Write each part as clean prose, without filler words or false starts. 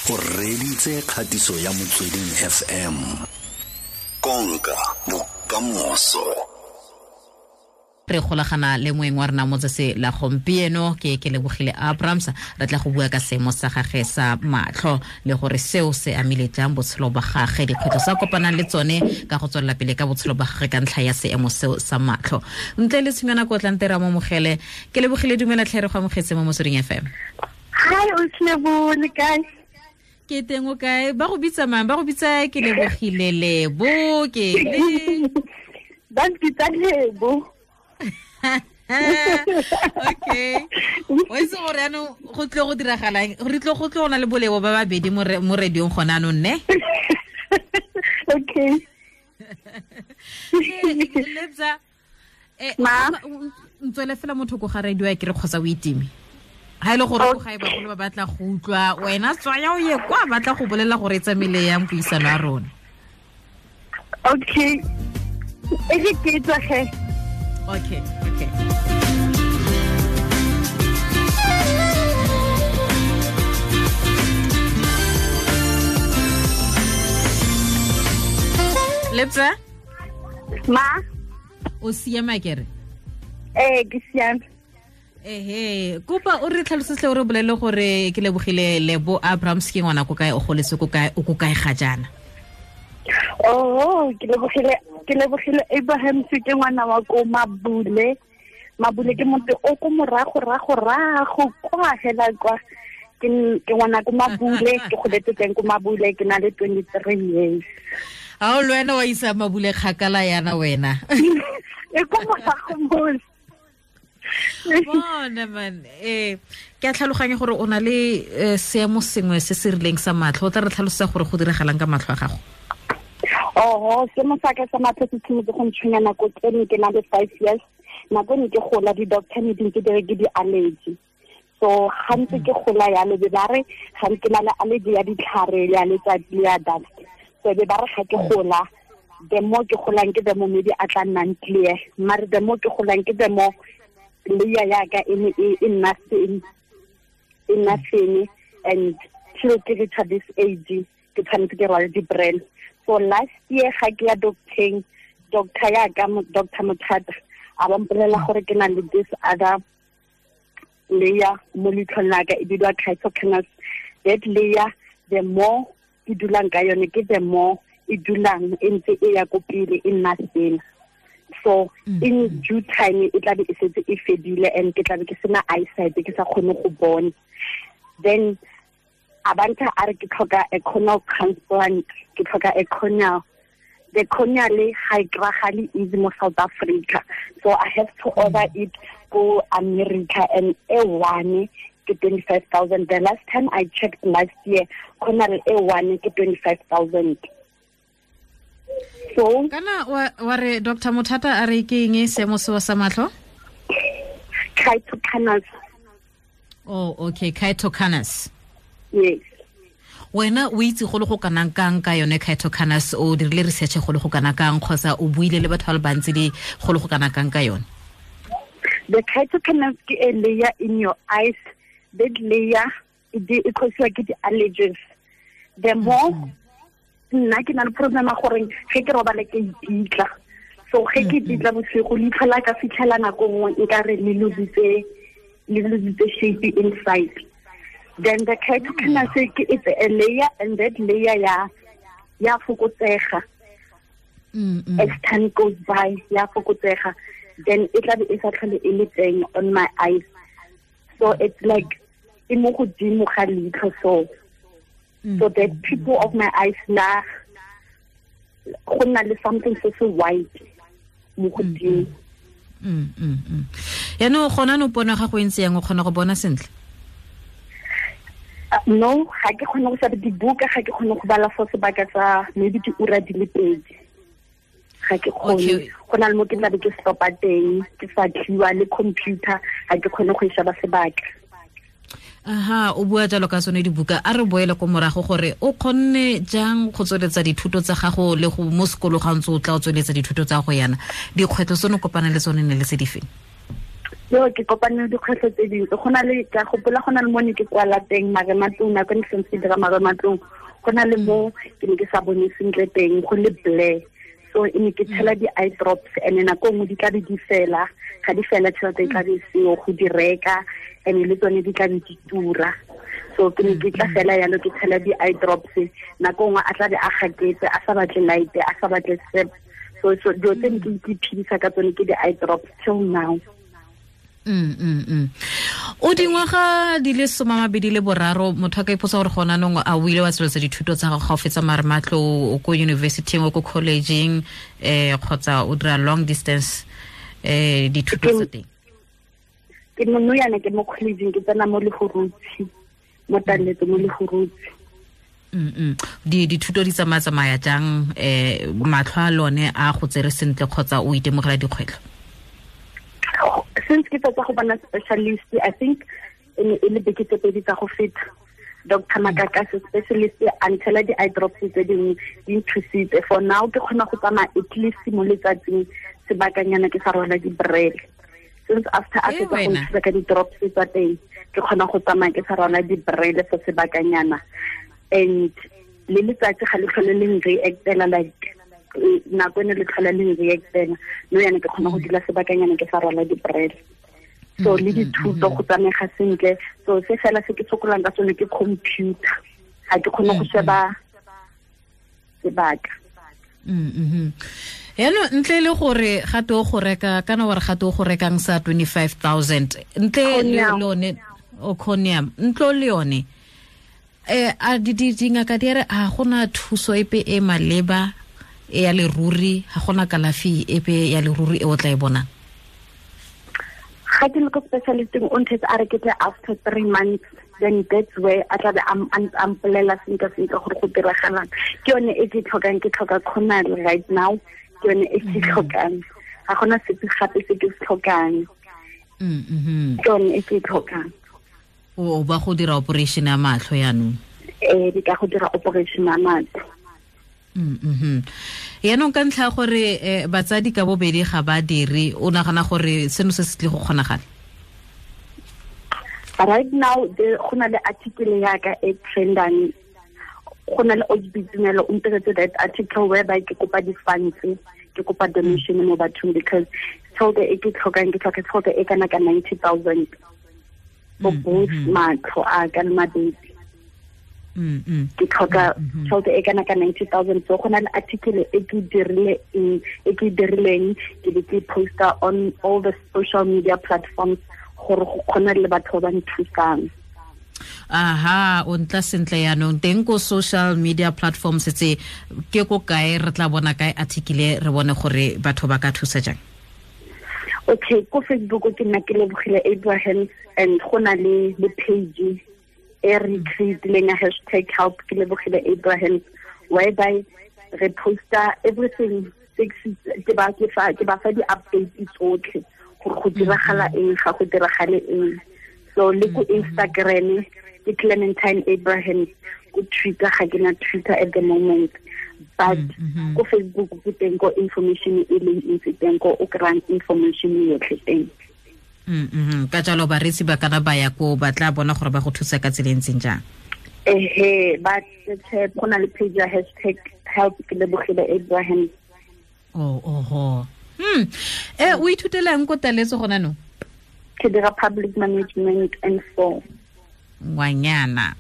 O reditse kgatiso ya Motsweding FM. Konka bokamoso. Re golagana le moeng wa rena motsese la gompieno ke Kelebogile Abrams. Re tla go bua ka seemo sa gage sa matlho le gore seo se amile jang botshelo ba gage, dikgwetlho sa kopanang le tsone ka go tswelela pele ka botshelo ba gage ka ntlha ya seemo seo sa matlho. Ntle le tshimana ko tlante ra mo mogele. Kelebogile, dumela tlhe, re go amogetse mo Motsweding FM. Hi, o tlebole kae? Ke teng, o kae? Ba go bitsa mang? Ba go bitsa Kelebogile Lebo ke le? Ba mpitsa Lebo. Okay. O itse gore yaanong go tlile go diragalang? Re tlile go tlo go na le bolebo ba babedi mo radiong gone anong, ne? Okay. Lebza, ntswele fela motho ko ga radio ya kere kgotsa o itime. Ha ile gore go gae bagolo ba batla go utlwa wena, tswaya o ye kwa, batla go bolela gore e tsamaile yang puisano ya rona. Okay. E re ke tswa ge. Okay. Lebza? Ma? O siama kere? Eh, ke siame. Ehe, kopa o re tlhalosetse, o re bolele gore Kelebogile Lebo Abrams ke ngwana ko kae, o goletse ko kae, o ko kae ga jaana? Oh, ke lebogile Abraham, ke ngwana wa ko Mabule. Mabule ke motse o ko morago rago rago kwa hela kwa. Ke ngwana ko Mabule, ke goletse teng ko Mabule, ke na le 23 years. A o le wena wa isa Mabule kgakala yana wena. E ko morago mo. Bona man, ke a tlhaloganya gore o na le seemo sengwe se se rileng sa matlho. O tla re tlhalosa gore go diragalang ka matlho a gago? Oho, seemo sa ka sa matlho se tshimotse go ntshwenya nako tse ne ke na le 5 years. Nako ne ke gola, di-doctor ne di ntse di re ke di-allergy. So ga ntse ke gola yalo, be ba re ga ke na le allergy ya ditlhare, ya letsatsi le ya dust. So be ba re ga ke gola, the more ke golang ke the more maybe a tla nnang clear, mare the more ke golang ke the more layer ya ka e ne e nna thin, e nna thin, and till ke reach this age ke tshwanetse ke rwale di-brand. So last year ga ke ya docteng, doctor ya ka, Doctor Mothata, a ba mpolelela gore ke na le this other layer mo leitlhong la ka, e bidiwa keratoconus. That layer, the more ke dulang ka yone ke the more e dulang e ntse e ya ko pele, e nna thin. So in due time e tlabe e setse e fedile and ke tlabe ke sena eyesight, ke sa kgone go bona. Then a bantha a re ke tlhoka a corneal transplant, ke tlhoka a corneal. The corneal le ga e kry-agale easy mo South Africa, so I have to order it go America, and e one ke 25,000. The last time I checked last year, corneal e one ke 25,000. So Kana wa re Dr Mothata a re ke eng seemo seo sa matlho? Keratoconus. Oh, okay, keratoconus. Yes. Wena o itse go le go kanang kang ka yone keratoconus? O dirile research go le go kana kang, kgotsa o buile le batho ba le bantsi di go le go kana kang ka yone? The keratoconus ke a layer in your eyes. That layer e causiwa ke di-allergies. The more nna ke na le problem ya gore ge ke robale ke ipitla, so ge ke ipitla bosigo, leitlho la ka fitlhela nako nngwe nkare le lositse shape inside. Then the keratoconus ke, it's a layer, and that layer ya fokotsega as time goes by, ya fokotsega. Then e tlabe e sa tlhole e le teng on my eyes. So it's like e mo godimo ga leitlho, so the people of my eyes la go nna le something se se white mo godimo. Yaanong gona no pono ya gago e ntse yang? O kgona go bona sentle? No, ga ke kgone go sheba dibuka, ga ke kgone go bala for sebaka sa maybe diura di le 2, ga ke kgone. Go na le mo ke tlabe ke stopa teng, ke sa tlhiwa le computer, ga ke kgone go e sheba sebaka. Aha, o bua jalo ka tsone dibuka, a re boele ko morago gore o kgonne jang go tsweletsa dithuto tsa gago le go mo sekolo ga ntse o tla o tsweletsa dithuto tsa go yana. Dikgwetlho tse ne kopana le tsone ne le tse di feng? Yo ke kopane le dikgwetlho tse dintsi. Go na le, ka gopola go na le mo ne ke kwala teng marematlong, nako ne ke santse ke dira marematlong, go na le mo ke ne ke sa bone sentle teng, go le blur. So e ne ke tshela di-eye drops, and nako nngwe di tla be di fela, ga di fela tšhelete e tla be seo go di reka, and le tsone di tla be di tura. So ke ne ke tla fela yalo ke tshela di-eye drops, nako nngwe a tla be a gaketse, a sa batle light, a sa batle sep. So dilo tse ne ke iphedisa ka tsone ke di-eye drops till now. O dingwaga di le 23, motho a ka ipotsa gore gona nong a o ile wa tsweletsa dithuto tsa gago ga o fetsa marematlo, o ko university-ing, o ko college-ing, kgotsa o dira long distance dithuto tsa teng? Ke mo nou yana ke mo college-ing, ke tsena mo Lehurutshi, mo Taletso mo Lehurutshi. Dithuto di tsamaya jang, matlho a lone a go tsere sentle kgotsa o itemogela dikgwetlho? Since ke fetsa go bona specialist, I think e le beke tse pedi tsa go feta, Dr. Makakase specialist a ntshela di-eye drops tse dingwe, di nthusitse. For now ke kgona go tsamaya at least mo letsatsing sebakanyana ke sa rwala di-brele. Since after a fetsa go nthusa ka di-drops tsa teng, ke kgona go tsamaya ke sa rwala di-brele for sebakanyana. And le letsatsi ga le tlhole le nreactela, like nako ene le tlhola le nreactela, no yana ke kgona go dula sebakanyana ke sa rwala di-brele. So le dithuto go tsamega sentle. So se fela se ke sokolang ka sone ke computer, ga ke kgone go sheba sebaka. Yaanong ntle le gore gate o go reka, kana wa re gate o go rekang sa 25,000, ntle le yone o conium, ntlo le yone, a dingaka di re a gona thuso epe e maleba e ya leruri, ga gona kalafi epe ya leruri e o tla e bonang? Ga ke le ko specialisting, o nthetse a re ke tle after 3 months, then that's where a tla be a mpolela sentle sentle gore go diragalang. Ke yone e ke tlhokang, ke tlhoka Conal right now, ke yone e ke tlhokang, ga gona sepe gape se ke se tlhokang. Ke yone e ke tlhokang. O ba go dira operation ya matlho yaanong? Ee, di ka go dira operation ya matlho. Yaanong ka ntlha gore batsadi ka bobedi ga ba dire, o nagana gore seno se se tle go kgonagala? Right now go na le article ya ka e trendang, go na le Ojibitumelo o ntiretse that article whereby ke kopa di-funds, ke kopa donation mo bathong, because tšhelete e ke tlhokang, ke tlhoka tšhelete e kana ka 90,000 for both matlho a ka le mabedi. Ke tlhoka tšhelete e kana ka 90,000. So go na le article e ke dirileng, ke be ke poster on all the social media platforms gore go kgona le batho ba nthusang. Aha, o ntla sentle yaanong teng ko social media platforms tse ke ko kae re tla bona kae article, re bone gore batho ba ka thusa jang? Okay, ko Facebook ke nna ke Lebogile Abrahams, and go na le page e re creatileng ya hashtag help ke Lebogile Abrahams, whereby re posta everything, ke ba fa di-updates tsotlhe gore go diragala eng, ga go diragale eng. So le ko Instagram ke Clementine Abrahams, ko Twitter ga ke na Twitter at the moment, but ko Facebook ke teng ko information e leng ntsi teng, ko o kry-ang information yotlhe teng. Ka jalo bareetsi ba kana ba ya ko ba tla bona gore ba go thusa ka tsela e ntseng jang? Ehe, ba go na le page ya hashtag help ke Lebogile Abrahams. Oho. O ithutelang ko Taletso gona no? Ke dira public management and 4. Ngwanyana.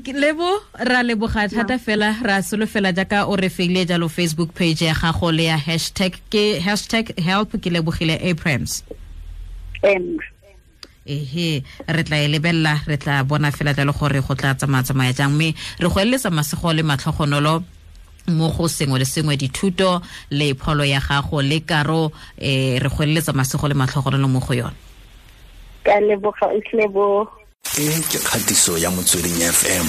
Lebo, ra leboga thata fela, ra solofela jaaka o re feile jalo Facebook page ya gago le ya hashtag ke hashtag help ke Lebogile Abrahams. Ehe, re tla e lebella, re tla bona fela jalo gore go tla tsamaya jang, mme re go eletsa masego le matlhogonolo mo go sengwe le sengwe, dithuto le pholo ya gago le karo, re go eletsa masego le matlhogonolo mo go yone. Ka leboga, Lebo. E ke kgatiso ya Motsweding FM.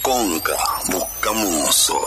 Konka bokamoso.